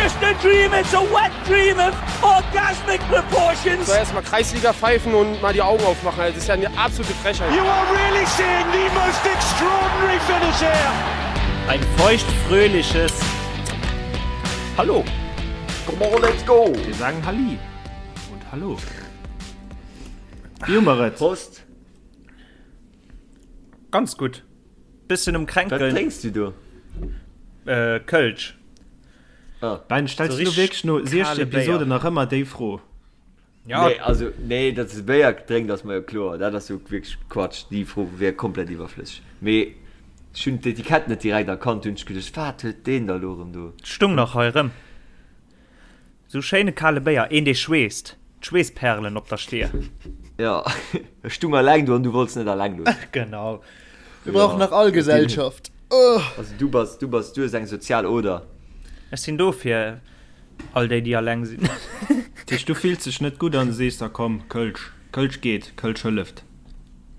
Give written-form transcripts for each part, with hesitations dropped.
just a dream, it's a wet dream of orgasmic proportions. So erstmal Kreisliga pfeifen und mal die Augen aufmachen. Das ist ja eine absolute Frechheit. You are really seeing the most extraordinary finish here. Ein feuchtfröhliches Hallo. Come on, let's go! Wir sagen Halli und Hallo. Wie hu mer et? Prost! Ganz gutt. Bëssen um Wat Kränkeln. drénks du do? Äh, Kölsch. Ah. Ben, stells So du wierklech no richtig 16 kale Béier. Episoden nach ëmmer déi Fro? Ja, Nee, also, nee, datt s de Béier drénkt, ass mer jo kloer. Dat ass jo wierklech Quatsch. Déi Fro wier komplett iwwerflësseg. Mee ech hunn d'Etikett net direkt erkannt, hunn ech geduecht, wat huet deen da lo erëm do? Stung nach hei erëm. Sou schéine kale Béier, een dee schweesst, d'Schweessperlen op der Stier. Jo, ech stung alleng do an du wollts net alleng loossen. Genau. Mir brauchen nach all Gesellschaft. Also du bass, du bass, du hues eng sozial Oder. Ech sinn do fir all déi, déi alleng sinn. Dat heescht, du fills dech net gutt an sees da komm, Kölsch, Kölsch geet, Kölsch hëlleft.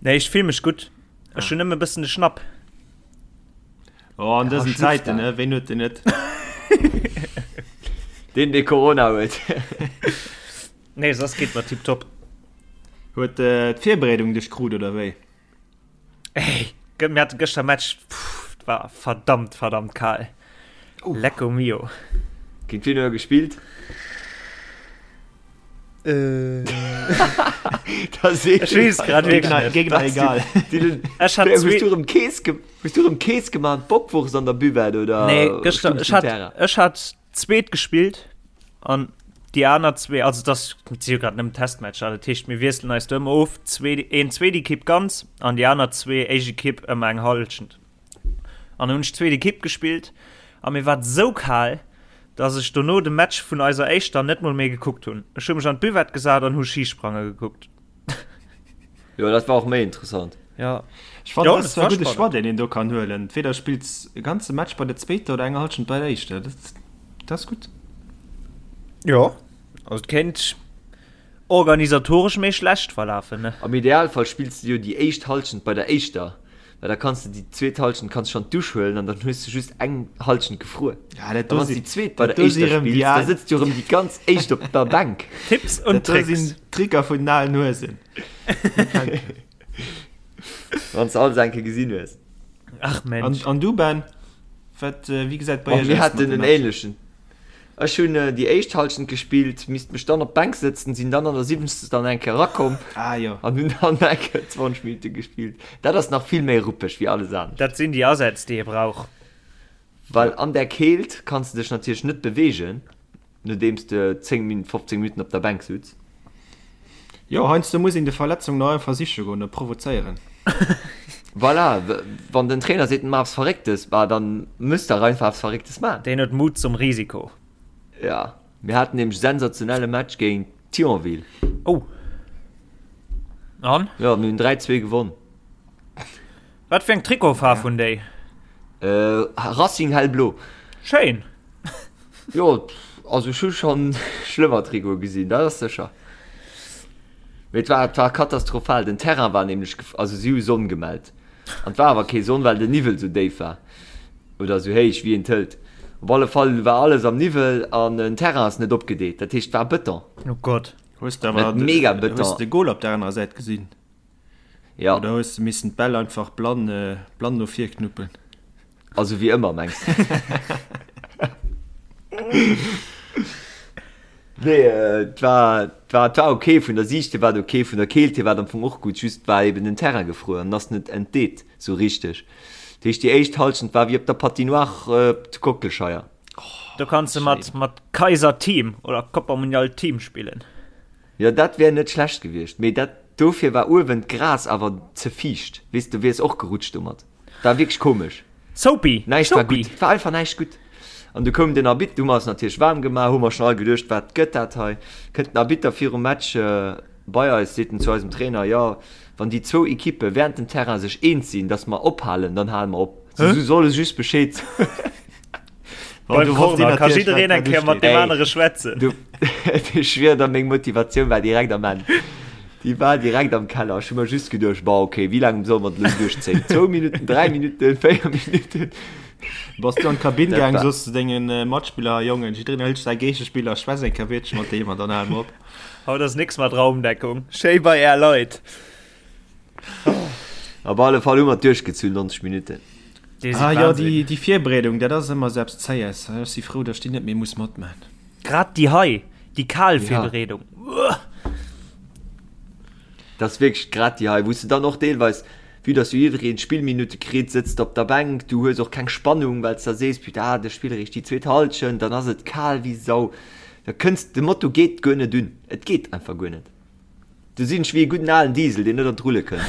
Nee, ech fill mech gutt. Ech hunn nëmme e bëssen de Schnapp. Oh, an dësen Zäiten, ne? Ween huet den net? Deen, dee Corona huet. Nee, soss geet mer tiptop. Huet äh, d'Virbereedung dech krut, oder wéi? Ey, mir hate gëschter Match, pff, war verdammt, verdammt kal. Oh. Lecco mio. Géint wien huet der gespillt? Äh. Ech weess grad wierklech net. Gegner egal. Ech hat Hues zwee. du erëm Kees ge hues du erëm Kees gemaach an d'Bockwurst an der Buvette oder Nee, gëschter, stungs ech du hat, Terrain? ech hat zweet gespillt an déi aner zwee, also das si jo grad nëmmen Testmatcher, dat heescht mir wiesselen eis do ëmmer of, zwee, een zweet Ekipp ganz an déi aner zwee éischt Ekipp ëmmer eng Hallschent. An hunn ech zweet Ekipp gespillt a mir war et sou kal, dass ech dono de Match vun eiser éischter net mol méi gekuckt hunn. Ech hu mech an d'Buvette gesat an hu Schisprange gekuckt. Jo, dat war och méi interessant. Ja. Ech fannen, Jo, dat ass dat zwar war e gudde spannend. Choix, deen een do kann huelen. Entweder spills e ganze Match bei der zweeter oder eng Hallschent bei der éischter. Dat, dat ass gutt. Jo, also et kéint organisatoresch méi schlecht verlafen, ne? Am Idealfall spills de jo déi éischt Hallschent bei der éischter, well da kanns de déi zweet Hallschent kanns schonn d'Dusch huelen an dann hues de just eng Hallschent gefruer. Ja, dat A do wann s si déi zweet bei dat der do si éischter rëm déi spills, da al sëtzt jo rëm déi ganz éischt op der Bänk. Tipps und dat do Tricks. sinn Tricker vun den alen Huesen. Wann s de alles eng Kéier gesinn hues. Ach An, Mensch. an du Ben, wat, wéi gesäit bei Och iech mir aus mat haten de en Matcher? ähnlechen. Ech hunn déi éischt Halschent gespillt, misst mech dann op d'Bänk sëtzen, sinn dann an der siwwenzegster dann eng Kéier erakomm Ah jo. an hunn dann eng Kéier 20 Minutte gespillt. Dat ass nach vill méi ruppeg wéi alles anescht. Dat sinn déi Asätz, déi ee brauch. Well an där Keelt kanns de dech natierlech net beweegen, nodeems de 10 Min, 15 Minutten op der Bänk sutz. Jo, heiansdo muss een de Verletzung nach einfach siche goen, e provozéieren. Voilà, wann den Trainer seet, maach eppes Verrécktes, bah, dann muss der einfach eppes Verrécktes maachen. Deen huet Mut zum Risiko. Ja, mir haten nämlech sensationelle Match géint Thionville. Oh. An? Ja, mir hunn 3, 2 gewonn. Wat fir eng Trikotfaarf hunn déi? Äh, Racing hellblo. Schéin. Jo, also ech hu schonn schlëmmer Trikote gesinn, dat ass sécher. Mee et war, et war katastrophal. Den Terrain war nämlech, also si hu Sonn gemellt. An et war awer kee Sonn, well den Niwwel sou déif war. Oder sou héich, wéi een et hëlt. Op alle Fall war alles am Niwwel an den Terrain ass net opgedeet. Dat heescht, et war Bëton. Oh Gott. Hues de awer Net mega Bëton. Hues de de Goal op der anerer Säit gesinn? Ja. Oder hues de missen d'Bäll einfach blann, blann no vir knuppen? Also wéi ëmmer, mengs de? Nee, et war, et war, et war ok. Vun der Siicht hier war et ok, vun der Keelt hier war et am Fong och gutt, just war eben den Terrain gefruer an ass net entdeet sou richteg. Dat heescht, déi éischt Hallschent war wéi op der Patinoire zu Kockelscheier. Do kanns de mat, mat Kaiser Team oder Copa Mundial Team spillen. Jo, dat wär net schlecht gewiescht, mee dat, dofir war uewen d'Gras awer ze fiicht, weess, du wiers och gerutscht domat. War wierklech komesch. Soapy! Näischt war Soapy! gutt, et war einfach näischt gutt. An du koum den Arbitter, du hu mer eis natierlech waarm gemaach, hu mer schonn all geduecht, wat gëtt dat hei? Kënnt den Arbitter virum Match bei eis, seet en zu eisem Trainer, jo, wann déi zwou Ekippe während dem Terrain sech eens sinn, datt mer ophalen, dann hale mer op. Si solle just Bescheed soen. Beim Corner ka jiddereen eng Kéier mat deem anere schwätzen. Du, ech schwier der, meng Motivatioun war direkt am Enn. Déi war direkt am Keller. Ech hu mer just geduecht, Bon, okay, wéi laang solle mer dat elo duerchzéien? Zwou Minutten, dräi Minutten, véier Minutten? Bass du an d'Kabinn gaang, soss zu dengen Matspiller, Jongen, jiddereen hëlt säi Géigespiller, schwätz eng Kéier Wiertche mat deem an dann hale mer op. Haut ass nix mat Raumdeckung. Schéi bei är Leit. Op alle Fall hu mer et duerchgezunn, 90 Minutten. Déi si Ah jo, déi, déi Virbereedung, dat ass ëmmer esou eppes Zéies. Ech si frou, datt ech déi net méi muss matman. Grad déi hei, déi kal Virbereedung. Dat ass wierklech grad déi hei, wou s de dann och deelweis, vue dass jo jiddereen Spillminutte kritt, sëtzt de op der Bänk, du hues och keng Spannung, well s de sees, putain, de spille eréischt déi zweet Hallschent, dann ass et kal wéi Sau, da kënns, de Moto geet guer net un, et geet einfach guer net. Du sinn ech wéi e gudden alen Diesel, deen net an d'Rulle kënnt.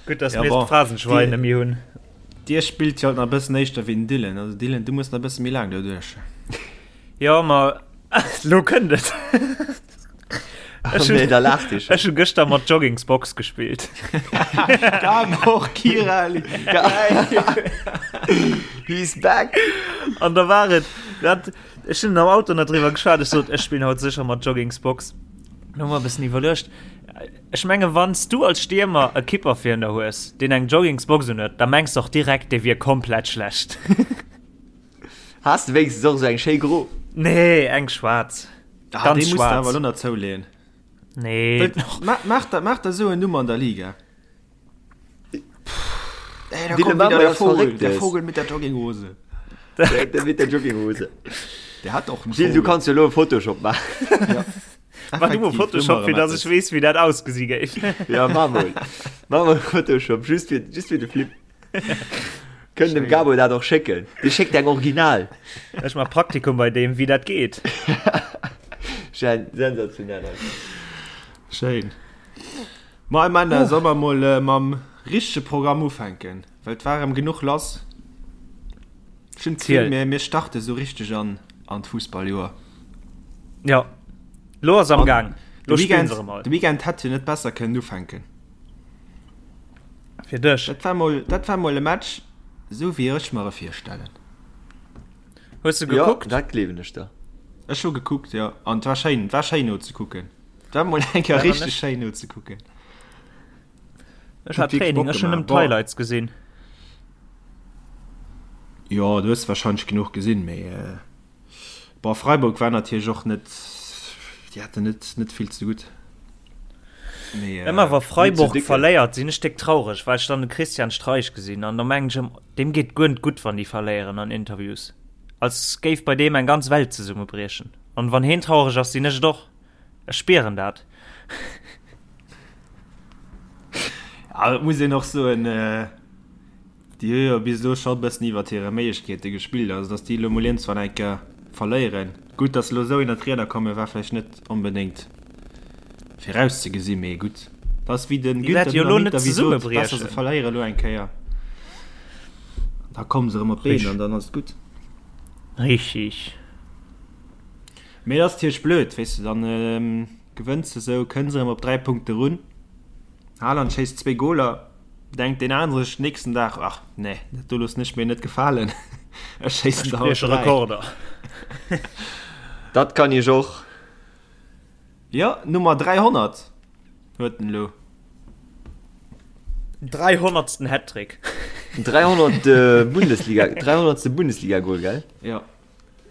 Gutt, dass mir d'Phrasenschwein net méi hunn. Dir spillt jo alt nach e bëssen éischter wéi den Dylan. Also Dylan, du muss nach e bësse méi laang doduerch. Jo, ma lo kënnt et. Ech hunn, Nee, da laacht Dir ech hu gëschter mat Joggingsbox gespillt. Gabor Kiraly! He's back! An da war et dat, ech hunn am Auto nach driwwer geschwat, ech sot, ech spillen haut sécher mat Joggingsbox. Dann hu mer e bëssen iwwerluecht. Ech menge wann s du als Stiermer e Kipper virun der hues, deen eng Joggingsbox un huet, da mengs de och direkt, dee wier komplett schlecht. Has de wéinstens och esou eng schéi gro? Nee, eng schwaarz. Ah, Ganz déi muss de schwaarz. awer elo nach zouleeën. Nee. Maach der, maach der esou en Numm an der Liga. Ey, da Dylan, kommt mach wieder mal der was Vogel, der Verrücktes. Vogel mit der Jogginghose. Der, der mit der Jogginghose. Der hat och en Gilles, du Vogel. kanns jo elo e Photoshop maachen. Ja. Mach du mol Photoshop, fir dass ech weess, wéi dat ausgesi géif. Ja, mach mol. Mach mol Photoshop, just fir, just fir de Flip. Kënnt dem Gabo dat och schécken. Dee schéckt eng Original. Ech mach Praktikum bei deem, wéi dat geet. Schéin, sensationell einfach. Schéin. Ma Männer, soll mer mol mam richtege Programm ufänken? Well et war erëm genuch lass. Ech hunn d'Gefill, mir, mir starte sou richteg an, an d'Fussballjoer. Jo, lo ass am Gaang. Lo spillen se erëm all. De Weekend hätt jo net besser kënnen ufänken. Fir dech. Dat war mol, dat war mol e Match, sou wéi ech mer e virstellen. Hues de gekuckt? Jo, dat gleewen ech der. Ech hu gekuckt, jo. An et war schéin, et war schéin nozekucken. Et war mol eng Kéier richteg schéin nozekucken. Ech hat Training, ech hunn nëmmen d'Highlights gesinn. Jo, du hues wahrscheinlech genuch gesinn, mee bon, Freiburg war natierlech och net, déi haten net net vill ze gutt. Mee Ëmmer wa Freiburg verléiert, sinn ech déck traureg, well ech dann de Christian Streich gesinn an da mengen ech ëmmer, deem geet guer net gutt, wann déi verléieren an Interviews, als géif bei deem eng ganz Welt zesummebriechen. An wann heen traureg ass, sinn ech et och. Ech spieren dat. Ja, et muss een och soen, déi hu jo bis elo scho e bëssen iwwert hire Méiglechkeete gespillt. Also datt déi elo mol iergendwann eng Kéier verléieren. Gutt, datt se elo esou ënnert d'Rieder kommen, war vläicht net onbedéngt virauszegesinn, mee gutt. Dat ass wéi de Déi wäerte Günther jo elo net Dynamit ewéi sot, besser se zesummebriechen. verléiere elo eng Kéier, da komme se erëm op d'Been an dann ass et gutt. Richtig. Mee et ass natierlech blöd, weess de, dann gewënns de sou, kënns erëm op 3 Punkte run, Haaland schéisst zwéi Goler, denkt deen anere sech nächsten Dag, ach nee, dat do loossen ech mir net gefalen, ech schéissen Ech der haut brieche 3. Rekorder. Dat kann ech och. Jo, Nummer 300 huet en elo. Dreihonnertsten Hattrick. 300. Bundesliga, 300. Bundesliga-Gol, gell? Jo.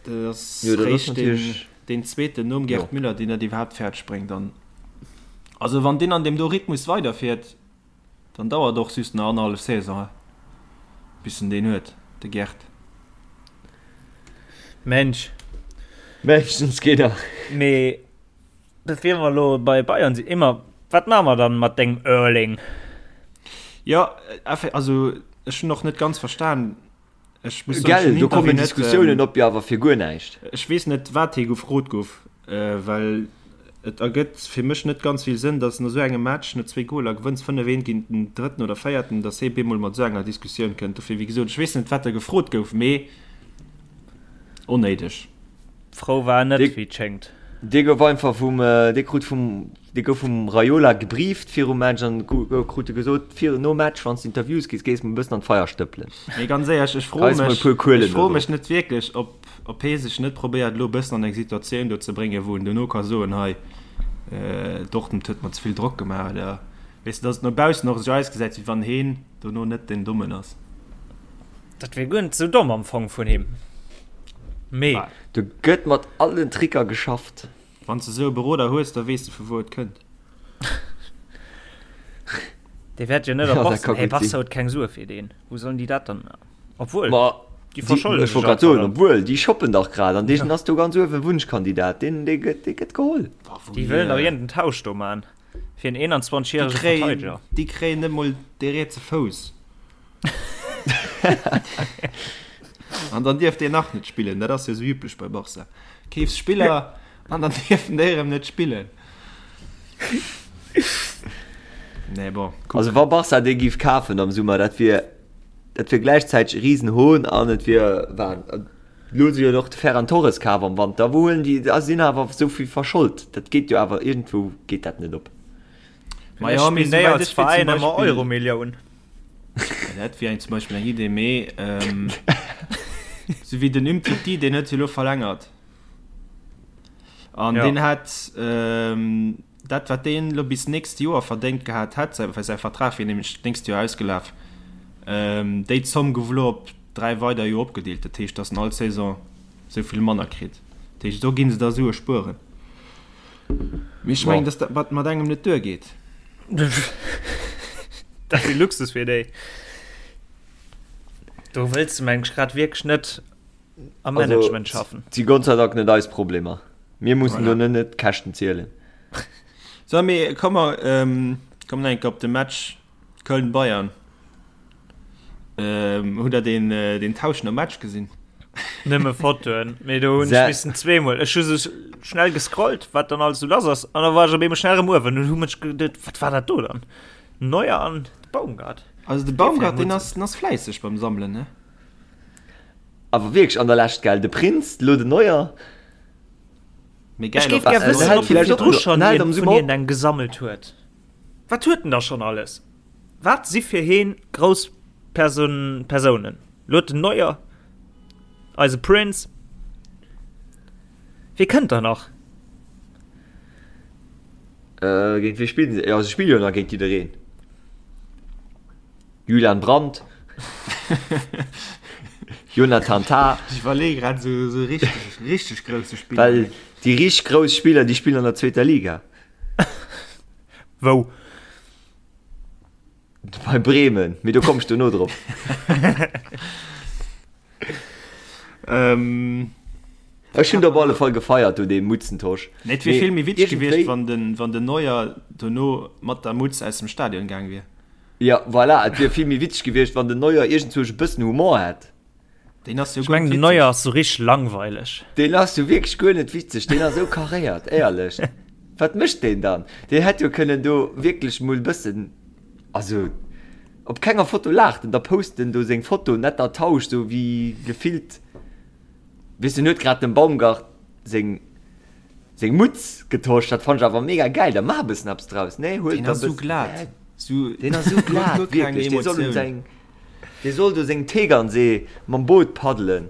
Dat ass Jo, dat ass réischt deen, natierlech. deen zweeten nom Jo. Gerd Müller, deen dat iwwerhaapt fäerdeg bréngt. An also wann deen an deem do Rhythmus weiderfiert, dann dauert och just nach annerhallef Saison, bis en deen huet, de Gerd. Mensch. Meeschtens geet er. Mee bevir mer elo bei Bayern sinn, Emma, wat maache mer dann mat dengem Erling? Jo, also ech hunn och net ganz verstan, Ech muss soen, ech Gell, hunn do kommen Interview net, Diskussiounen op, jo awer fir guer näischt. Ech weess net, wat hie gefrot gouf, well et ergëtt fir mech net ganz vill Sënn, datt no esou engem Match, no zwéi Goler, gewënns 5, 1 géint den Drëtten oder Véierten, datt hie bemol mat esou enger Diskussioun kënnt. Dofir, wéi gesot, ech weess net, wat da gefrot gouf, mee onnéideg. Frou war en net, Dee, wéi et schéngt. dee gouf einfach vum, dee krut vum, dee gouf vum Raiola gebrieft virum Match an krut e gesot, vir, nom Match, wann s de Interviews gis, gees mol e bëssen an d'Feier stëppelen. Mee ganz éierlech, ech froe Geis mol e mech, puer Kuelen ech froe do mech drop. net wierklech, ob, ob hee sech net probéiert, elo e bëssen an eng Situatioun do ze bréngen, wou en dono ka soen, hei, Dortmund huet mer ze vill Drock gemaach oder. Weess de, dass et no baussen och esou ausgesäit, wéi wann heen dono net den Dommen ass. Dat wier guer net esou domm am Fong vun him. Mee. Do gëtt mat allen Tricker geschafft. Wann s de esou e Beroder hues, da weess de vu wou et kënnt. Dee wäert jo net op Barca. Hey, Barca huet keng Sue fir deen. Wou sollen déi dat dann? Obwuel, Ma déi verscholden sech einfach soen, obwuel, déi shoppen dach grad an deen ass do ganz uewen Wunschkandidat. Deen, dee gëtt, dee gëtt geholl. Déi wëllen dach iergend en Tausch do man fir en 21 järege Verteideger. Déi kréien net mol dee rietse Fouss. An dann dierf deen nach net spillen. Dat ass jo esou üblech bei Barca. Keefs Spiller an dann dierfen déi erëm net spillen. Nee, bon. Also wa Barca dee giff kafen am Summer, dat wier dat wier gläichzäiteg e Risenhohn an et wier Wahn. Elo si jo och de Ferran Torres kaf am Wanter. Wou huelen déi, a sinn awer esou vill verschold. Dat geet jo awer iergendwou geet dat net op. Ma jo, mee souwäit als Veräin ëmmer Euromillioun. Dat wier eng zum Beispill eng Idee, mee sou wéi den Umtiti, deen huet jo elo verlängert. An ja. deen hat ähm, dat wat deen lo bis nächst Joer verdéngt gehat hätt, well säi Vertrag wier nämlech d'nächst Joer ausgelaf, ähm, déi Zomm gouf elo op 3 weider Joer opgedeelt. Dat heescht, datt en all Saison sou vill manner kritt. Dat heescht, do ginn se da Sue spueren. Mee ech mengen, datt dat mat mat engem net duergeet. Dat wier Luxus fir déi. Do wëlls de meng ech grad wierklech net am Management schaffen. Si Gott sei Dank net eis Problemer. Mir mussen do net net d'Käschten zielen. So, mee komm mer ähm, kommen enke op de Match Köln-Bayern. Ähm, hutt der den, äh, den Tausch nom Match gesinn? Nëmme Fotoen, mee do hunn ech missen zweemol. Ech hu sou schnell gescrollt, wat dann alles sou lass ass, an da war ech op eemol schnell erëm uewen und hu mech geduet, wat war dat do dann? Neuer an de Baumgart. Also de Baumgart, deen ass, den ass fläisseg beim Sammelen, ne? Awer wierklech an der Lescht, gell? De Prinz, lo den Neuer. Mee geil, Ech géif gär wëssen, ob hie virdru schonn een vun hinnen eng gesammelt huet. Wat huet en da schonn alles? Wat si fir heen grouss Person, Persounen? Lo huet den Neuer, eise Prince. Wie kënnt da nach? Äh, géint wie spillen se? Jo, se spille jo nach géint jiddereen. Julian Brandt, Jonathan Tah. Ech iwwerleeë grad esou esou richteg, richteg grousse Spiller. Well déi richteg grouss Spiller, déi spillen an der zweeter Liga. Wou? Bei Bremen, mee do komm ech dono drop. Ähm. Ech hunn et op alle Fall gefeiert do, dee Mutzentosch. Nee, et wier vill méi witzeg gewiescht, wann den, wann den Neuer dono mat der Mutz aus dem Stadion gaang wier. Jo, voilà, et wier vill méi witzeg gewiescht, wann den Neuer iergendzwousch e bëssen Humor hätt. Deen ass jo Ech mengen, den Neuer ass sou richteg langweileg. Deen ass jo wierklech guer net witzeg, deen ass esou karéiert, éierlech. Wat mécht deen dann? Deen hätt jo kënnen do wierklech mol e bëssen, also op kenger Foto laacht en, da post en do seng Foto netter Tausch, sou wéi gefillt, weess en huet grad dem Baumgart seng. Seng Mutz getosch, dat fannt ech awer mega gäil, da maach e bëssen eppes draus, nee? Huel Deen ass sou glat, sou, deen ass sou glat, wierklech, dee soll un seng, dee soll do seng Tegernsee mam Boot paddelen,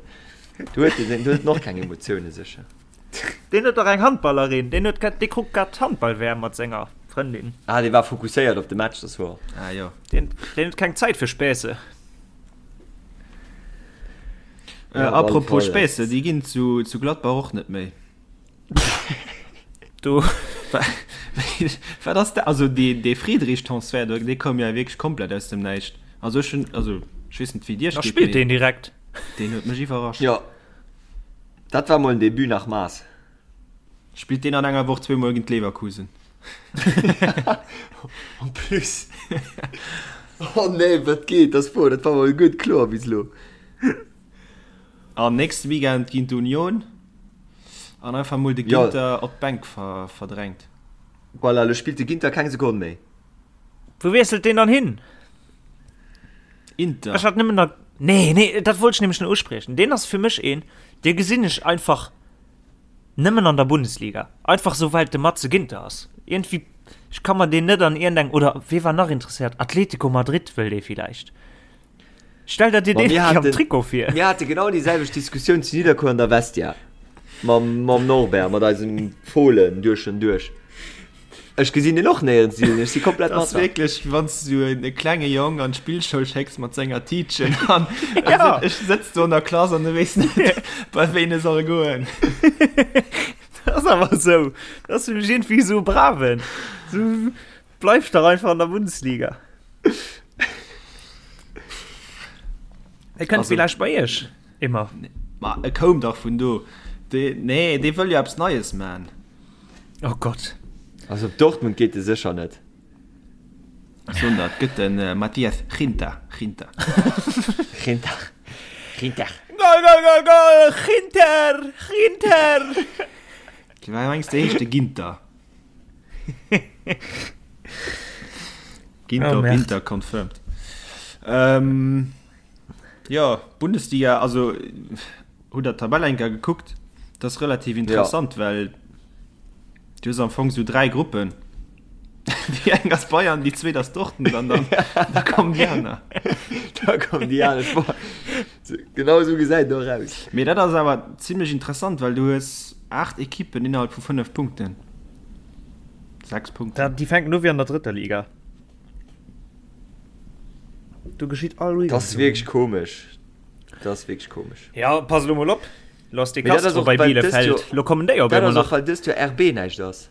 do huet deen, do huet en och keng Emotioune sécher. Deen huet dach eng Handballerin, deen huet grad, dee kuckt grad d'Handball-WM mat senger Frëndin. Ah, dee war fokusséiert op de Match, dat ass wouer. Ah jo. Deen, deen huet keng Zäit fir Spässe. Äh, apropos Spässe, déi ginn zu, zu Gladbach och net méi. Do. Wat ass dat? Also dee, dee Friedrich-Transfert, do, dee koum ja wierklech komplett aus dem Näischt. Also ech hunn, also ech weess net wéi et iech Da geet, spillt mee deen direkt. deen huet mech iwwerrascht. Jo, dat war mol en Debut nach Maß. Spillt deen an enger Woch zweemol géint Leverkusen. En plus. Oh nee, wat geet? Dat ass wouer, dat war mol gutt kloer bis elo. An nächste Weekend géint Union an einfach mol de Ginter op d'Bänk verdrängt. Voilà, elo spillt de Ginter keng Sekonn méi. Wou wiesselt deen dann hin? Inter. Ech hat nëmmen nach. Nee, nee, dat wollt ech nämlech nach uspriechen. Deen ass fir mech een, dee gesinn ech einfach nëmmen an der Bundesliga. Einfach sou, well et de Matze Ginter ass. Iergendwéi, ech ka mer deen net an iergendeng, oder wee war nach interesséiert? Atletico Madrid wëll dee villäicht. Stell der dir deen am Trikot vir. Mir hate genau déi selwecht Diskussioun zu Nidderkuer an der Vestia. Mam, mam Norbert, mat eisem Fohlen duerch en duerch. Ech gesinn den och néierens, Dylan, ech si komplett mat der. Wierklech, wann s du e klenge Jong an d'Spillschoul schécks mat senger Tiitchen an ja. ech sëtz do an der Klass an e weess net, bei ween e soll goen. Dat ass awer esou. Dat ass fir mech iergendwéi esou e Braven. Sou, bleif dach einfach an der Bundesliga. E kënnt villäicht bei iech ëmmer. Ma e koum dach vun do. Dee, nee, dee wëll jo eppes Neies man. Oh Gott. Also op Dortmund geet e sécher net. Soen der, et gëtt de Matthias Ginter. Ginter. Ginter. Ginter. Goal, goal, goal, goal! Ginter! Ginter! Wéi mengs de heescht de Ginter? Ginter op Inter confirmed. Ähm, jo, Bundesliga, also hutt der d'Tabell eng Kéier gekuckt? Dat ass relativ interessant, ja. well du hues am Fong sou dräi Gruppen. Déi eng ass Bayern, déi zweet ass Dortmund an dann da kommen déi aner. Da kommen déi aner. Genau sou gesäit et och aus. Mee dat ass awer zimlech interessant, well du hues 8 Ekippen innerhalb vu 5 Punkten. 6 Punkten. Déi fänken u wéi an der drëtter Liga. Do geschitt all Weekend. Dat ass wierklech komesch. Dat ass wierklech komesch. Ja, pass elo mol op. Lo ass de Castro bei Bielefeld. Lo kommen déi op eemol nach. Dat ass och, well dëst Joer RB näischt ass.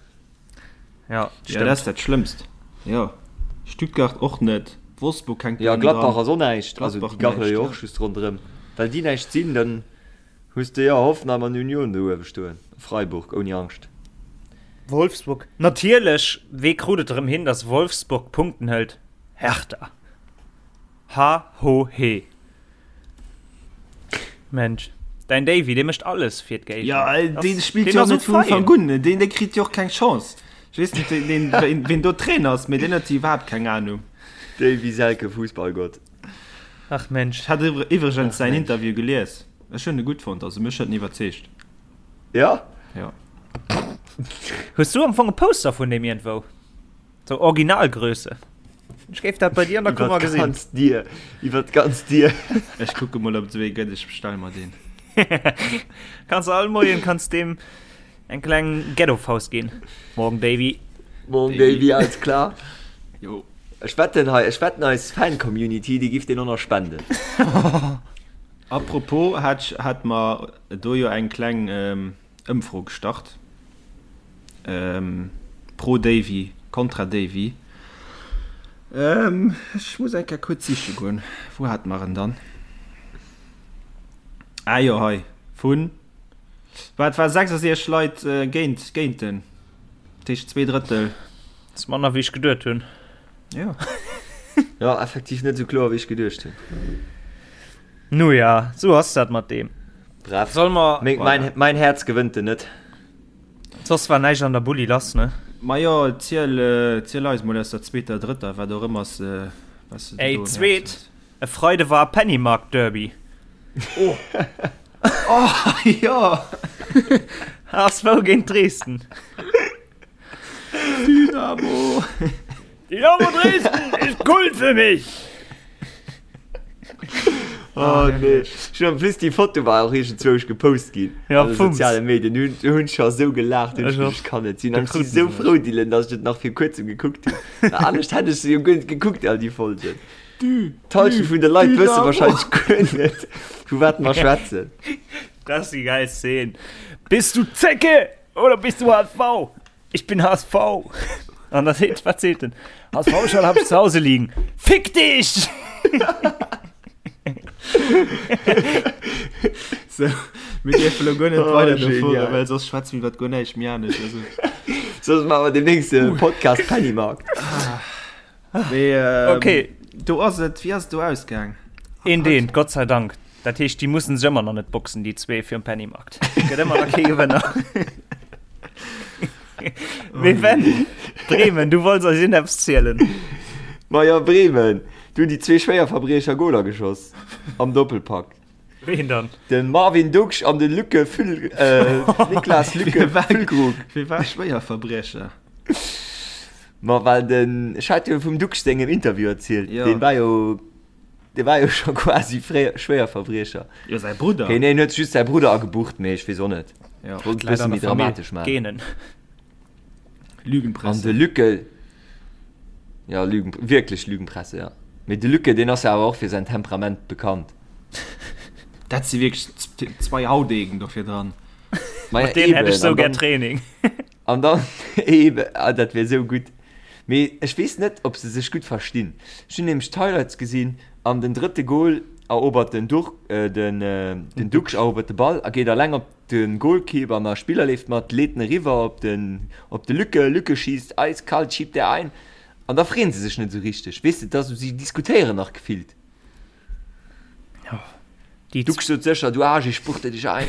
Ja, ja, dat ass dat Schlëmmst. Jo, Stuttgart och net, Wolfsburg hänkt Ja, Gladbach ass och näischt. Also déi gachele jo och just ronderëm. Well déi näischt sinn, dann hues de jo Hoffenheim an Union do uewe stoen. Freiburg ouni Angscht. Wolfsburg, natierlech, wee krut et erëm hin, datt Wolfsburg Punkten hëlt? Hertha. Ha ho he. Mensch, däin Davy, dee mécht alles fir d'Géigner. Ja, dee spillt jo net vun Ufank un, deen dee kritt jo och keng Chance. Ech weess net, deen, deen, ween do Trainer ass, mee deen huet jo iwwerhaapt keng Anung. Davy Selke, Fussballgott. Ach Mensch. Ech hat iwwregens säin Interview gelies. Ech hunn e gutt fonnt, also mech huet en iwwerzeegt. Ja? Ja. Hues du am Fong e Poster vun deem iergendwou? Sou Originalgröße. Ech géif dat bei dir an der Kummer gesinn. Iwwer d'ganz Dier. Iwwer d'ganz Dier. Ech kucke mol ob et esou ee gëtt, ech bestelle mer deen. Kanns all Moien kanns deem eng kleng Ghetto-Faust ginn. Morgen Davy. Morgen Davy, alles klar. Jo. Ech wetten hei, ech wetten eis Fan-Community, déi giff deen och nach spenden. Apropos, hat, hat mer do jo eng kleng Ëmfro gestart. Pro Davy, kontra Davy. Ech muss eng Kéier kuerz siche goen. Wou hate mer en dann? Ah jo, hei. Vun, wat war 66 Leit géint, géint en. Dat heescht 2 Drëttel. Dat ass manner wéi ech geduet hunn. Jo. Jo, effektiv net esou kloer wéi ech geduecht hunn. Nu ja, sou ass dat mat deem. Bref, Soll mer. Meng, mein, mein Häerz gewënnt en net. Soss war näischt an der Bulli lass, ne? Majo, ziel, ziel eis mol aus der zweeter, drëtter, wat och ëmmer s, was de Ey, do um Häerz zweet, hues. e Freide war Pennymarkt Derby. Oh! Oh, jo! HSV géint Dresden. Dynamo! Dynamo Dresden ist Kult für mich! Oh nee. Schon en plus déi Foto war och iergendzwousch gepost ginn Ja, an de Fums. soziale Medien. Hunn hunn scho sou gelaacht, hunn ech Ech och. geduecht, kann net sinn. Da An ech si kruten sou se frou, Dylan, dass ech et nach vir kuerzem gekuckt hunn. Well anescht hätt ech se jo guer net gekuckt, all déi Folgen. D'Halschent vun de Leit wësse Dynamo! wahrscheinlech guer net, vu wat mer schwätzen. Das ist die geil Szene. Bist du Zecke oder bist du HSV? Ich bin HSV. An da seet, wat seet en? HSV-Schal hab ich zu Hause liegen. Fick dich! So, mir dierfe lo guer net Oh, weider genial. dofueren, well soss schwätze mir iwwer guer näischt méi anescht. Also, Soss maache mer demnächst e Podcast Pennymarkt. mee, ähm, Okay. Do ass et, wéi ass et do ausgaang? Een deen, Gott sei Dank. Dat heescht, déi mussen sech ëmmer nach net boxen, déi zwee fir um Pennymarkt. Gëtt ëmmer nach kee Gewënner. Mee Ben, Bremen, du wollts eis iergendeppes zielen. Majo, Bremen, do hunn déi zwee Schwéierverbriecher Goler geschoss am Doppelpack. Ween dann? De Marvin Ducksch an de Lücke Füll, äh, Niklas Lücke Füllkrug. Wie war Schwéierverbriecher? Ma well den, ech hat jo vum Ducksch sengem Interview erzielt, Jo. deen war jo, dee war jo scho quasi fréier Schwéierverbriecher. Jo, säi Brudder. Okay, nee, en huet just säi Brudder agebucht, mee ech weess och net. Jo. Wollt e bësse méi dramatesch maachen. Genen. Lügenpresse. An de Lücke, ja Lügen, wierklech Lügenpresse, ja. Mee de Lücke, deen ass jo awer och fir säin Temperament bekannt. Dat si wierklech zwei Haudegen do virdran. Mat deenen hätt ech sou gär Training. An dann eben, ah, dat wär sou gutt. Mee ech weess net, ob se sech gutt verstinn. Ech hunn nämlech d'Highlights gesinn an den drëtte Goal erobert den Duch, den, den Ducksch erobert de Ball a geet alleng op de Goalkeeper an a Spiller leeft mat, leet en eriwwer op den, op de Lücke, Lücke schiisst eiskalt, schiebt der ein an da freeën se sech net esou richteg, weess de, et ass esou, si diskutéieren nach gefillt. Déi Ducksch sot sécher, du Aarsch, ich spuchte dich ein.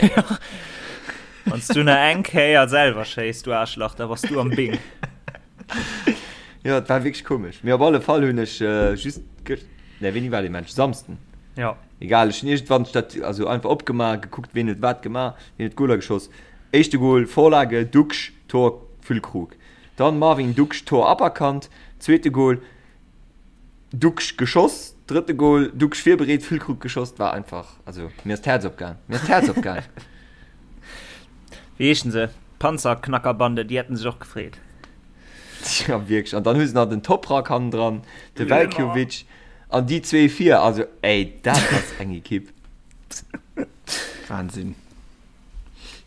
Wann s du nach eng Kéier selwer schéiss, du Aarschlach, da bass du am Bing. Jo, et war wierklech komesch. Mee op alle Fall hunn ech just gëscht, nee, wéini war dee Match? Samsden? Jo. Egal, ech hunn iergendwann d'Stat, also einfach opgemaach, gekuckt, ween huet wat gemaach, ween huet d'Goler geschoss. Éischte Gol, Vorlage, Ducksch, Tor, Füllkrug. Dann Marvin Ducksch, Tor aberkannt. Zweete Gol, Ducksch geschoss. Drëtte Gol, Ducksch virbereet, Füllkrug geschoss. War einfach, also mir ass d'Häerz opgaang. Mir ass d'Häerz opgaang. Wéi heeschen se? Panzerknackerbande, déi hätten sech och gefreet. Ja, wierklech. An dann hu se nach den Toprak hannendran, de Veljkovic an déi zwee vir. Also, ey, dat ass eng Ekipp. Wahnsinn.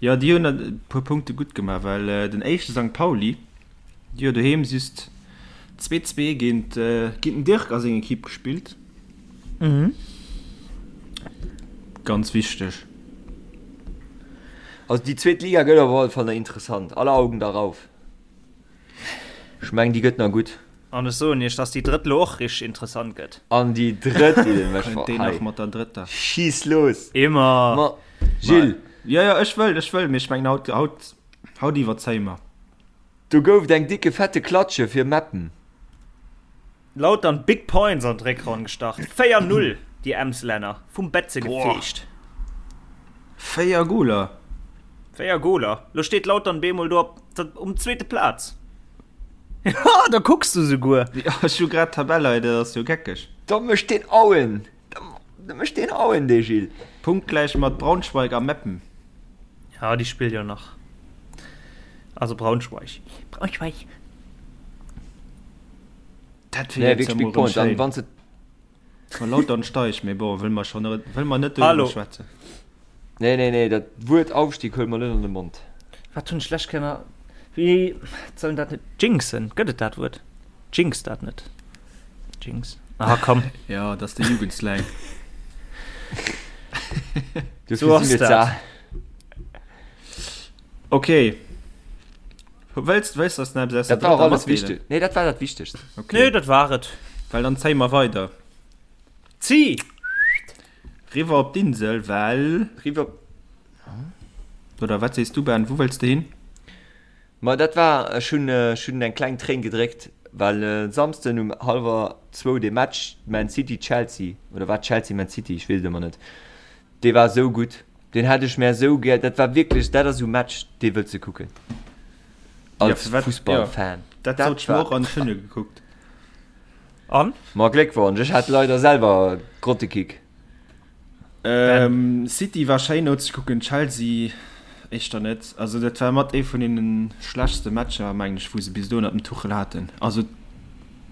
Jo, déi hunn e puer Punkte gutt gemaach, well den éischte Sankt Pauli, déi hu doheem just 2, 2 géint den Dirk a seng Ekipp gespillt. Ganz wichteg. Also déi zweet Liga gëtt op alle Fall nach interessant. Alle Augen darauf. Ech mengen déi gëtt nach gutt. An ech soen iech, dass déi drëtt lo och richteg interessant gëtt. An déi drëtt, déi den mech Kënnt deen nach mat der drëtter? Schiiss los! Immer! Ma Gilles! Jo, jo, ech wëll, ech wëll, mee ech mengen haut, haut, haut iwwerzéie mer. Do gouf et eng dicke fette Klatsche fir Meppen. Lautern Big Points an d'Réckronn gestart, 4, 0 déi Emslänner vum Betze gefeegt. 4 Goler! 4 Goler! Lo steet Lautern bemol do op um zweete Plaz. Ha, da kucks du souguer! Jo, ech hu grad d'Tabell hei, dat ass jo geckeg. Da mécht deen Auen! Da mécht deen Auen, dee Gilles! Punktgläich mat Braunschweig a Meppen. Ja, déi spillt jo nach. Also Braunschweig. Braunschweig! Dat wier Nee, jetzt wierklech ja Big mol rëm Point. An schéin. wann se. Wa Lautern steigt, mee bon, wëll mer schonn net, wëll mer net Hallo. doriwwer schwätzen. Nee, nee, nee, dat Wuert Aufstieg huele mer net an de Mond. Wat hunn ech lech kënner. Wéi soll dat net jinxen? Gëtt et dat Wuert? Jinx dat net? Jinx? Ah, komm. Ja, dat ass de Jugendslang. Dofir So ass si mir dat. ze al. Okay. Wëlls, wëlls dass nach eppes aus der Dat war och drëtter alles matdeelen? wichteg. Nee, dat war dat Wichtegst. Okay. Nee, dat war et. Well dann zéie mer weider. Zi! Riwwer op d'Insel, well. Riwwer. Oder wat sees du, Ben? Wou wëlls de hin? Ma dat war, ech hunn, ech hunn eng kleng Tréin gedréckt, well e Samsden um hallwer zwou dee Match Man City-Chelsea, oder war et Chelsea-Man City, ech weess et ëmmer net, Dee war esou gutt, deen hätt ech mär esou gär, dat war wierklech, dat ass esou Match, dee wëlls de kucken als Fussballfan. Dat sot ech mer och an ech hunn e gekuckt. An? Ma Gléckwonsch, ech hat leider selwer Grottekick. City war schéin nozekucken, Chelsea éischter net. Also dat war mat ee vun deene schlechtste Matcher, mengen ech, wou se bis elo ënnert dem Tuchel haten. Also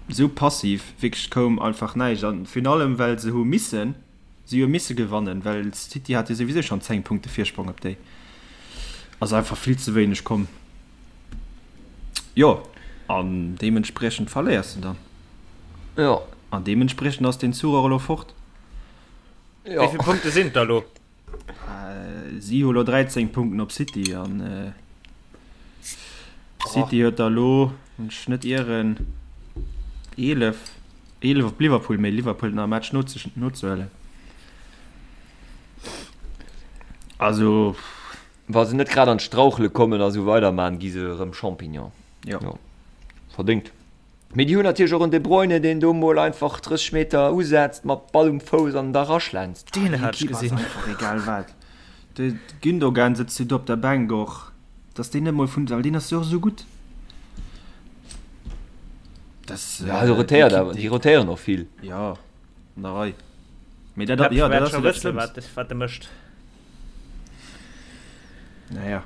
esou passiv, wierklech koum einfach näischt an virun allem well se hu missen. Si hu misse gewannen, well City hat jo souwisou schonn 10 Punkte Virsprong op déi. Ass einfach vill ze wéineg komm. Jo, an deementspriechend verléiers de dann. Jo. An deementspriechend ass den Zuch och elo fort. Jo. Wéi vill Punkte sinn et da lo? Si hu lo 13 Punkten op City an City huet der elo, wann ech net ieren, 11. 11 op Liverpool, mee Liverpool huet nach e Match nozehuelen. Also. Wa se net grad an d'Strauchele kommen a sou weiderman, gi se erëm Champignon. Jo. Jo. Verdéngt. Mee déi hunn natierlech och en De Bruyne, deen do mol einfach 30 Meter usetzt, mat Ball um Fouss an da raschlänzt. Deen hat ech Déi Ekipp ass gesinn. einfach egal wat. De Gündogan sëtzt jo do op der Bänk och, dass deen net mol vun, well deen ass jo och esou gutt. Das, ja, also rotéiert awer, déi rotéieren och vill. Ja, an der Rei. Mee dat, ja, dat ass jo dat Schlëmmst. Wat, wat de mécht. Naja.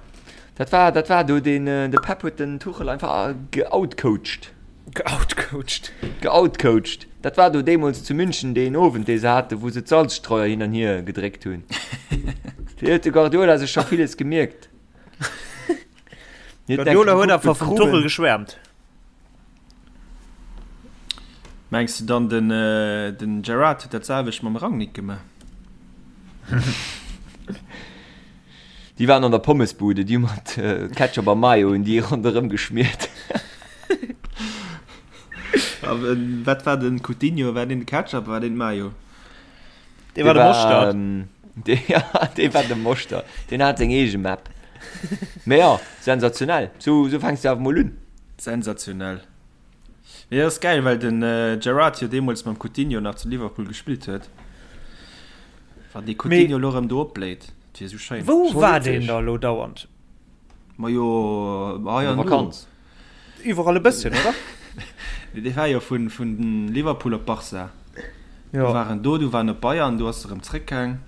Dat war, dat war do deen, de Pep huet den Tuchel einfach geoutcoacht. Geoutcoacht. Geoutcoacht. Dat war do deemools zu München deen Owend, dee se haten, wou se d'Salzstreuer hin an hier gedréckt hunn. Do huet de Guardiola sech scho villes gemierkt. Guardiola huet awer vum Tuchel geschwärmt. Mengs de dann den den Gerrard huet dat selwecht mam Rangnick gemaach? Déi waren an der Pommesbude, déi hu mat Ketchup a Mayo hunn déi ronderëm geschmiert. A wat war den Coutinho? War deen de Ketchup, war deen Mayo? Dee war de Moschtert. Dee, ja, dee war de Moschtert. Deen hat seng eege Map. Mee jo, sensationell. Sou, sou fänks de awer mol un. Sensationell. Mee dat ass gäil, well den Gerrard jo deemools mam Coutinho nach zu Liverpool gespillt huet. Wann dee Coutinho elo erëm do opbléit, dat wier esou schéin. Wou war deen da elo dauernd? Majo, hei an do. Vakanz. Iwwerall e bësschen, oder? Nee, dee war jo vun, vun Liverpool op Barça. Jo. Du war en do, du war en op Bayern, du ass e rëm zréckgaang.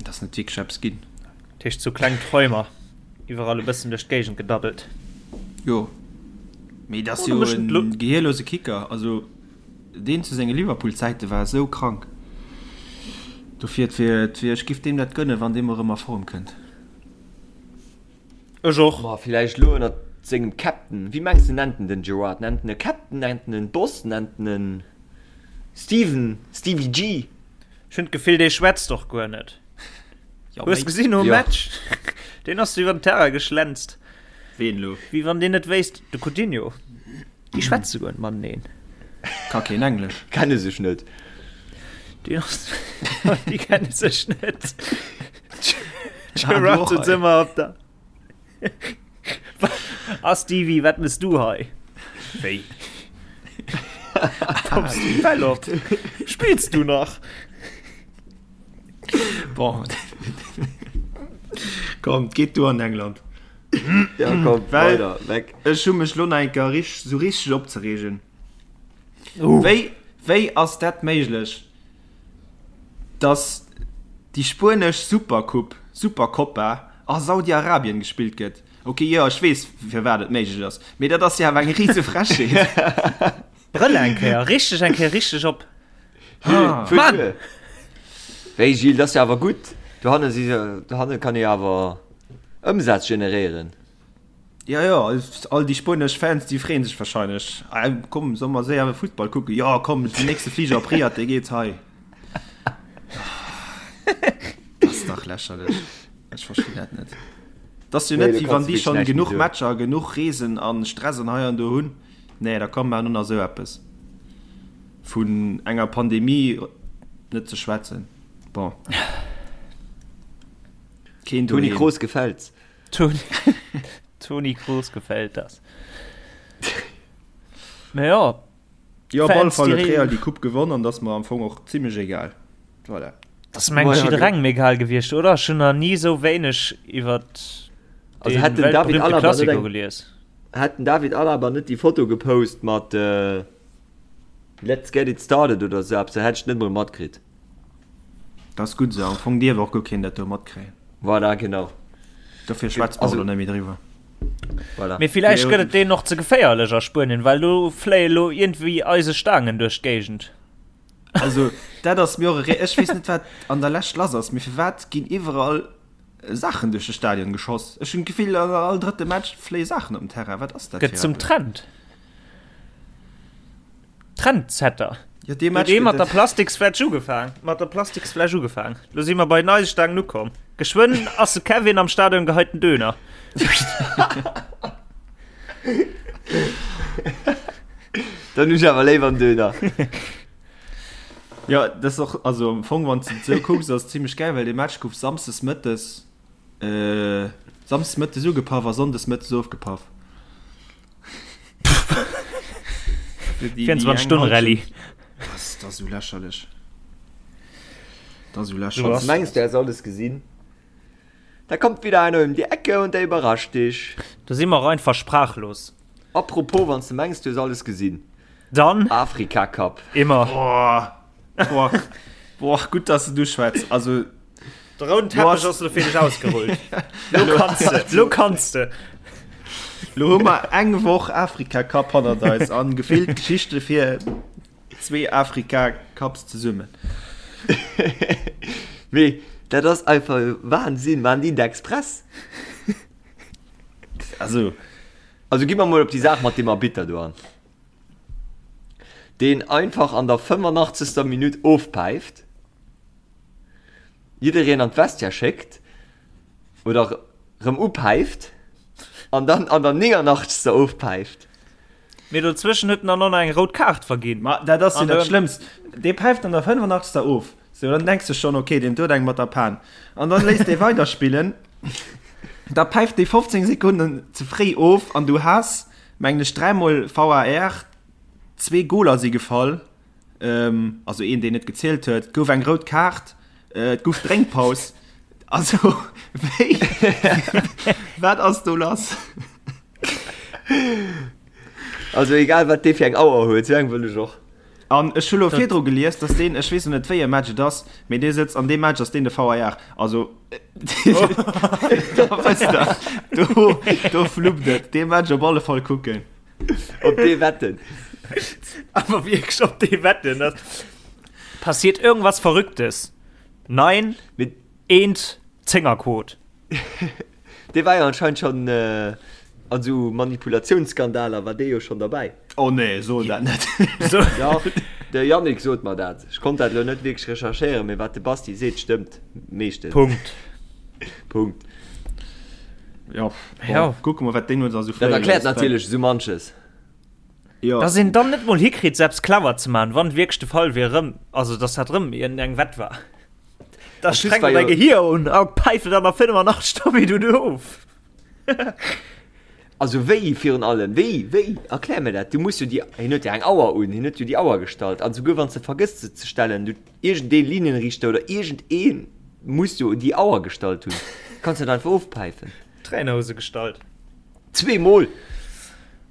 Et ass net wierklech eppes ginn. Dat heescht sou kleng Träumer, iwwerall e bëssen duerch d'Géigend gedaddelt. Jo. Mee et ass jo e gehierlose Kicker. Also deen zu senge Liverpool-Zäite war esou krank. Dofir, et wier, et wier, ech giff deem dat gënnen, wann dee mol erëm a Form kënnt. Ech och. Ma villäicht elo ënnert sengem Captain. Wéi mengs de nennt en den Gerrard? Nennt en e Captain? Nennt en en Boss? Nennt en en Steven? Stevie G? Ech hunn d'Gefill dee schwätzt och guer net. Jo, Hues méi. gesinn nom Jo. Match? Deen ass iwwer den Terrain geschlänzt. Ween elo? Wéi wann deen net wéisst, de Coutinho. Déi schwätze guer net mateneen. Ka keen Englesch. Kenne sech net. Déi ass, déi kenne sech net. Gerard sitzt ëmmer op der. Ah Stevie, wat mëss du hei? Wéi? Kommst du Bäll op? Spillst du nach? Bon. Komm, geet du an England. Ja, komm, Well weider, weg. ech hu mech lo nach eng Kéier rich, sou richteg opzereegen. Uh. Wéi, wéi ass dat méiglech, dass déi spuenesch Supercoupe, Supercopa a Saudi-Arabien gespillt gëtt? Ok, jo, ech weess, firwat et méiglech ass, mee dat ass jo awer eng rise Frechheet. Brëll eng Kéier, richteg eng Kéier richteg op. Ah. Mann! Wéi Gilles, dat ass jo awer gutt. Dohanne si se, dohanne kann ee awer Ëmsaz generéieren. Jo, jo, all déi spuenesch Fans, déi freeën sech wahrscheinlech. Ah, komm, solle mer séier Futtball kucken? Jo, komm, den nächste Fliger op Riyadh, dee geet hei. Dat ass dach lächerlech. Ech verstinn dat net. Dat ass jo net, wéi wann déi schonn genuch Matcher, genuch Reesen a Stress an hei an do hunn. Nee, da komm, maachen och nach esou eppes. Vun enger Pandemie net ze schwätzen. Bon. Keen Toni Kroos gefällt's. Toni, Toni Kroos gefällt das. Mä ja. Jo, op alle Fall huet Real déi Coupe gewonn an dat ass mer am Fong och zimlech egal. Voilà. Dat ass mengen ech jidderengem egal gewiescht, oder? Ech hunn nach ni esou wéineg iwwer Also hätt den David weltberühmte Alaba net Classico eng, gelies. hätt den David Alaba net déi Foto gepost mat Let's get it started oder esou eppes, da hätt ech et net mol matkritt. Dat ass gutt esou. Am Fong dierf och guer keen dat do matkréien. Voilà, genau. Dofir schwätze mer och elo net méi driwwer. Voilà. Mee villäicht gëtt et deenen och ze geféierlech a Spuenien, well do fléie lo iergendwéi eise Staangen duerch d'Géigend. Also dat ass mir och e Rä-, ech weess net wat an der Lescht lass ass, mee firwat ginn iwwerall Saachen duerch de Stadion geschoss? Ech hunn d'Gefill an all drëtte Match fléie Saachen op den Terrain. Wat ass dat Gëtt fir zum eppes? Trend. Trendsetter. Jo, dee Huet Match ee mat gëtt der et. Plastiksfläsch ugefaang, mat der Plastiksfläsch ugefaang. Lo si mer bei den Eisestangen ukomm. Geschwënn ass de Kevin am Stadion geheiten Döner. Dann hunn ech awer léiwer en Döner. Jo, dat ass och, also am Fong, wann s de et esou kucks, ass et zimlech gäil, well dee Match gouf samsdes mëttes, samsdes mëttes ugepaff a sonndes mëttes ofgepaff. 24 Stonnen Rallye. Das, das ist so lächerlich. Das ist so So lächerlich. ass Mengs du, du häss alles gesinn? Da kommt wieder einer um die Ecke und der überrascht dich. Do si mer och einfach sprachlos. Apropos, wann s du mengs, du hues alles gesinn. Dann Afrika Cup. Immer. Boah, boah, boah, gutt, dass du du schwätz. Also. De rouden Teppech ass lo fir dech ausgerullt. Lo kanns de, lo kanns de. Lo hu mer eng Woch Afrika Cup hannert eis an gefillt Geschichte fir zwee Afrika Cups zesummen. Mee dat ass einfach Wahnsinn, waren déi d'Express? Also. Also gi mer mol op déi Saach mat deem Arbitter do an. Deen einfach an der 85. Minutt ofpäift. Jiddereen an d'Vestiaire schéckt oder rëm upäift an dann an der 89. Ofpäift. Mee dozwëschen huet en dann och nach eng rout Kaart verginn. Ma dat ass jo dat Schlëmmst. Dee päift an der 85. Of. Sou, dann denks de schonn, ok, deen huet eng mat der Pan. An dann léisst dee weiderspillen. Da päift dee 15 Sekonnen ze fréi of an du has, mengen ech, dräimol VAR, zwee Goler si gefall. also een deen net gezielt huet, gouf eng rout Kaart, et gouf Drénkpaus. Also wéi wat ass do lass? Also egal wat dee fir eng Auer huet, sou eng wëll ech och. An ech hu lo virdru gelies, dass deen, ech weess lo net wéi e Match et ass, mee dee sëtzt an deem Match ass deen de VAR. Also da wësst der, do, do fluppt et. Dee Match op alle Fall kucken. Op dee wetten. Awer wierklech op dee wetten. Das passiert irgendwas Verrücktes. Nein, Mit eent Zéngerquot. Dee war jo anscheinend schon äh, an sou Manipulationsskandaler war dee jo schon derbäi. Oh nee, so dat net. So. Ja, de Yannick sot mer dat. Ech konnt dat lo net wierklech recherchéieren, mee wat de Basti seet, stëmmt meeschtens. Punkt. Punkt. Ja, Ja. Kucke mer wat deen uns also Dat erkläert natierlech esou manches. Ja. Dass een dann net mol hikritt, selbst clever ze man, wann wierklech de Fall wier erëm, also dass dat erëm iergendeng Wett war. Da plus strengt war däi jo- Gehier un a päift et an der 85. Minutt of. Also wéi virun allem, wéi, wéi, erklär mir dat, du muss jo déi, hien huet jo eng Auer un, hien huet jo déi Auer gestallt, an souguer wann s de vergëss se ze stellen, du, iergendee Linienrichter oder iergendee muss jo déi Auer gestallt hunn, kanns net einfach ofpäifen. Trainerhose gestallt. Zweemol!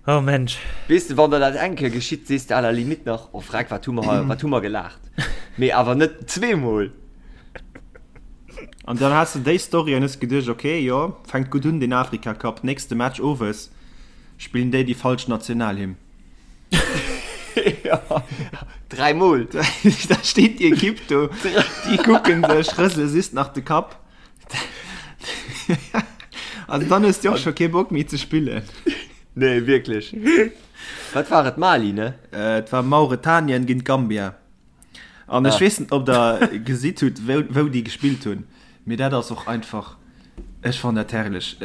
Oh Mensch. Weess de, wann der dat eng Kéier geschitt, sees de à la limite nach, oh freck, wat hu mer hei, wat hu mer gelaacht. Mee awer net zweemol. An dann has de déi Story an hues geduecht, ok, jo, fänkt gutt un den Afrika Cup, nächste Match owes spillen déi déi falsch Nationalhymn. Ja, dräimol. Da steet déi Ekipp do, déi kucken sech, rësele just nach de Kapp. Also dann hues de och scho kee Bock méi ze spillen. Nee, wierklech. Wat war et, Mali, ne? Et war Mauretanien géint Gambia. An ech Ah. weess net, ob der gesitt hutt, wou, wou déi gespillt hunn, mee dat ass och einfach, ech fannen dat herrlech.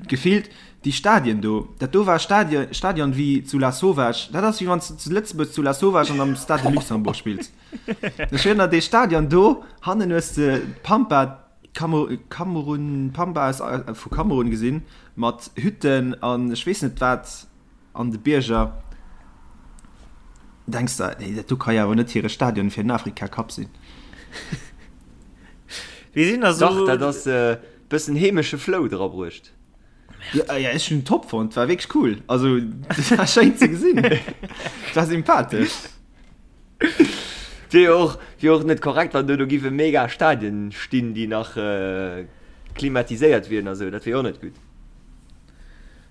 Gefillt déi Stadien do, dat do war Stadion, Stadion wéi zu Lasauvage, dat ass wéi wann s de zu Lëtzebuerg zu Lasauvage an am Stade de Luxembourg spills. Ech erënnere dee Stadion do, hannen hues de d'Pampa, Kamerun, Kamerun, Pampa aus, vu Kamerun gesinn, mat Hütten an ech weess net wat. An de Bierger denks der, nee, dat do ka jo awer net hire Stadion fir den Afrika Cup sinn. Wéi sinn da Dach, sou. dat ass e bëssen heemesche Flow drabruecht. Ja, ja, ech hunn top fonnt, war wierklech cool. Also, dat war schéin ze gesinn. Dat war sympathesch. Wier jo och, wier och net korrekt, wann do do géife mega Stadien stinn, déi nach klimatiséiert wieren a sou. Dat wier jo och net gutt.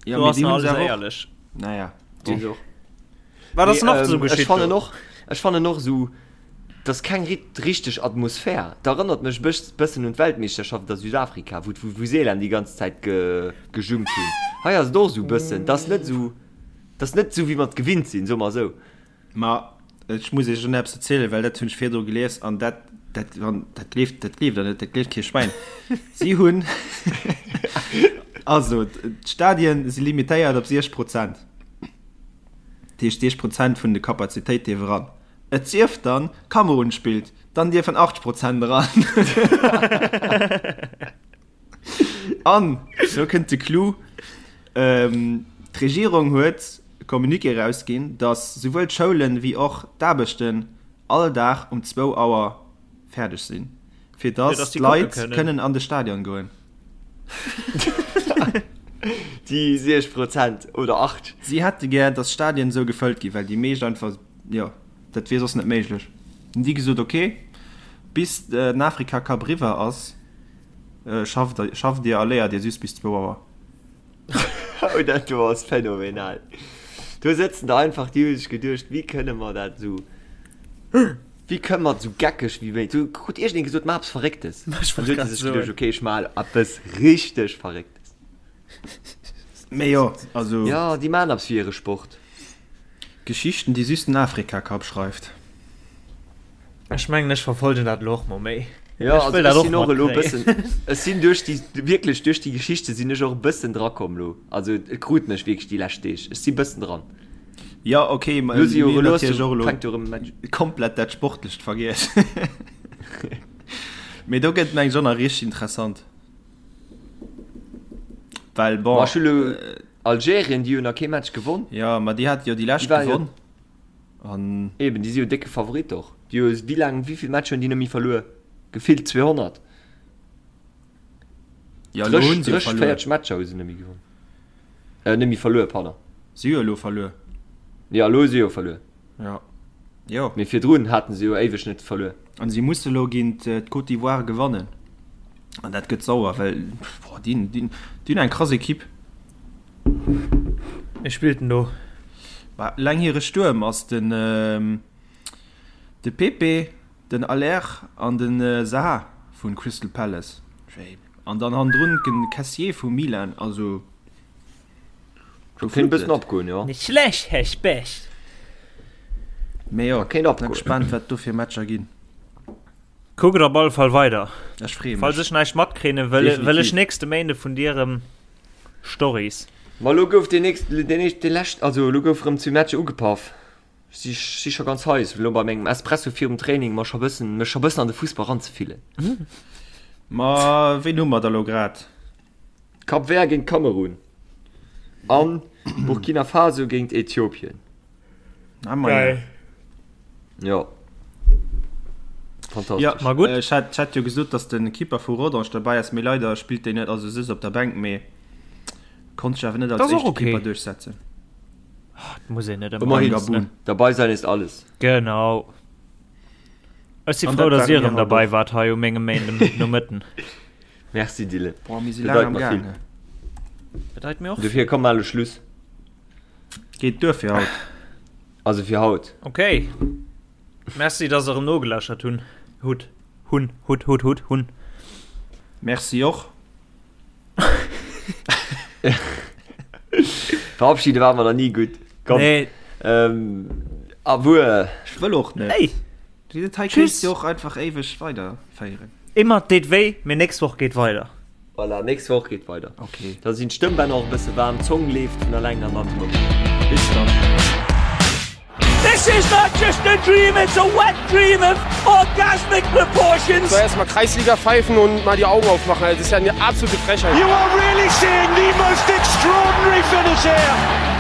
Ja, Do mee ass déi nach hunn alles se awer och. éierlech. Naja, Déi bon. och. Wat ass Mee, nach sou ähm, ech geschitt fannen do? och, ech fannen och sou, dass keng rit richteg Atmosphär. Dat erënnert mech bëss bëssen un d'Weltmeeschterschaft a Südafrika, wou d'Vuvuzelaen déi ganz Zäit ge gejummt hunn. Hei ass et och sou bëssen, 't ass net sou, 't ass net sou wéi mer et gewinnt sinn, soe mer sou. Ma ech muss iech elo nach eppes erzielen, well dat hunn ech virdru gelies an dat, dat, wann, dat gleeft, dat gleeft der net, dat gleeft kee Schwäin. Si hunn, also d'Stadien si limitéiert op 60 Prozent. Dat heescht 60 Prozent vun de Kapazitéit dierf eran. Et sief dann, Kamerun spillt, dann dierfen 80 Prozent eran. An lo kënnt de Clou, D'Regierung huet e Communiqué erausginn, datt souwuel d'Schoulen wéi och d'Aarbechten all Dag um zwou Auer fäerdeg sinn, fir datt d'Leit kënnen an de Stadion goen. Déi 60 Prozent oder 8. Si hätte gär, datt d'Stadien esou gefëllt ginn, well déi meescht einfach, jo, dat wier soss net méiglech. Hunn déi gesot, ok, bis den Afrika-Cup eriwwer ass. Schafft schafft Dir a léiert Dir just bis zwou Auer. Oh dat do ass phänomenal. Do sëtzen der einfach, déi hu sech geduecht, wéi kënne mer dat esou, wéi kënne mer et esou geckeg wéi méi. Do krut iergendeen gesot, maach eppes Verrécktes. Ech An wollt du huet grad se sech soen. geduecht, okay, ech maachen eppes richteg Verrécktes. Mee jo, also. Jo, déi maachen eppes fir hire Sport. Geschichten, déi just den Afrika-Cup schreift. Ech mengen ech verfolgen dat elo och mol méi. Jo, Ech also wëll dat ech och sinn och elo e matkréien. bëssen, ech sinn duerch déi, wierklech duerch déi Geschichte sinn ech och e bëssen drakomm elo. Also et krut mech wierklech déi lescht Deeg. Ech si bëssen dran. Jo, ok, ma Elo si jo, mir hunn elo ass natierlech jo, och elo fänkt jo erëm e Match. komplett dat Sportlecht vergiess. Mee do gëtt et mengen ech och nach richteg interessant. Well bon. Ma ech hu lo Algerien, déi hunn nach kee Match gewonn. Jo, ma déi hate jo déi lescht Déi waren jo. gewonn. An. Eben, déi si jo décke Favorit och. Déi hu wéi laang, wéi vill Matcher hunn déi net méi verluer? Gefillt 200. Ja, elo hunn se jo 30, verluer. 40 Matcher hu se net méi gewonn. Äh, net méi verluer, pardon. Si hu jo elo verluer. Jo, elo hu se jo verluer. Ja. Jo. Mee virdrun haten se jo éiweg net verluer. An si musse elo géint d'Côte d'Ivoire gewannen. An dat gëtt sauer, well, boah, déi, déi, déi hunn eng krass Ekipp. Wie spillt denn do? Bah, eleng hire Stuerm ass den de Pepe, den Aller an den Zaha vun Crystal Palace. An dann hannendrun den Kessié vu Milan. Also Do kéint e bëssen opgoen, jo. Nicht schlecht, Herr Specht. Mee jo, Kéint opgoen. gespannt wat do fir Matcher ginn. Kuckt op alle Fall weider. Ech freeë Falls mech. ech näischt matkriegen, wëll, wëll ech Definitiv. nächste Méinde vun dir erëm Stories. Ma elo gouf deen nächst, deen éischt, dee lescht, also elo gouf erëm zwee Matcher ugepaff. Ech si, si scho ganz heiß, elo bei mengem Espresso virum Training mer scho bëssen, mech scho bëssen an de Fussball ranzefillen. Ma ween hu mer da lo grad? Cap Vert géint Kamerun an Burkina Faso géint Äthiopien. Ah, ma ja. Jo. Fantastesch. Ja, Ma gutt. Ech hat, ech hat jo gesot, dass de Keeper vu Rodange derbäi ass, mee leider spillt deen net, also sëtzt op der Bänk, mee konnt sech awer net als Das ass och éischte okay. Keeper duerchsetzen. Dat muss een net ëmmer Ëmmerhin. alles, ne? Dabei sein ist alles. Genau. Ech si An frou, dat dass dir ware erëm mir haut derbäi och. waart hei u mengem Méinden Nomëtten. Merci Dylan. Boah, mir si Bedeit laang am mer Gaang. vill. Bedeit mir och Dofir komm mal elo Schluss. Geet duer fir haut. Also fir haut. Okay. Merci, dass der erëm nogelauschert hunn. Hutt. Hunn. Hutt, hutt, hutt, hunn. Merci och. Verabschiede war mer nach ni gutt. Komm. Nee. Ähm, Awuer. Ech wëll och net. Hey. Déi Detail Tschüss. kéinst jo och einfach éiweg weiderféieren. Immer deet wéi, mee nächst Woch geet weider. Voilà, nächst Woch geet weider. Okay. Da sinn d'Stëmmbänner och e bësse waarm, d'Zong leeft vun alleng an dann si mer gutt. Bis dann. This is not just a dream, it's a wet dream of orgasmic proportions. So erstmal Kreisliga pfeifen und mal die Augen aufmachen. Das ist ja eine absolute Frechheit. You are really seeing the most extraordinary finish here.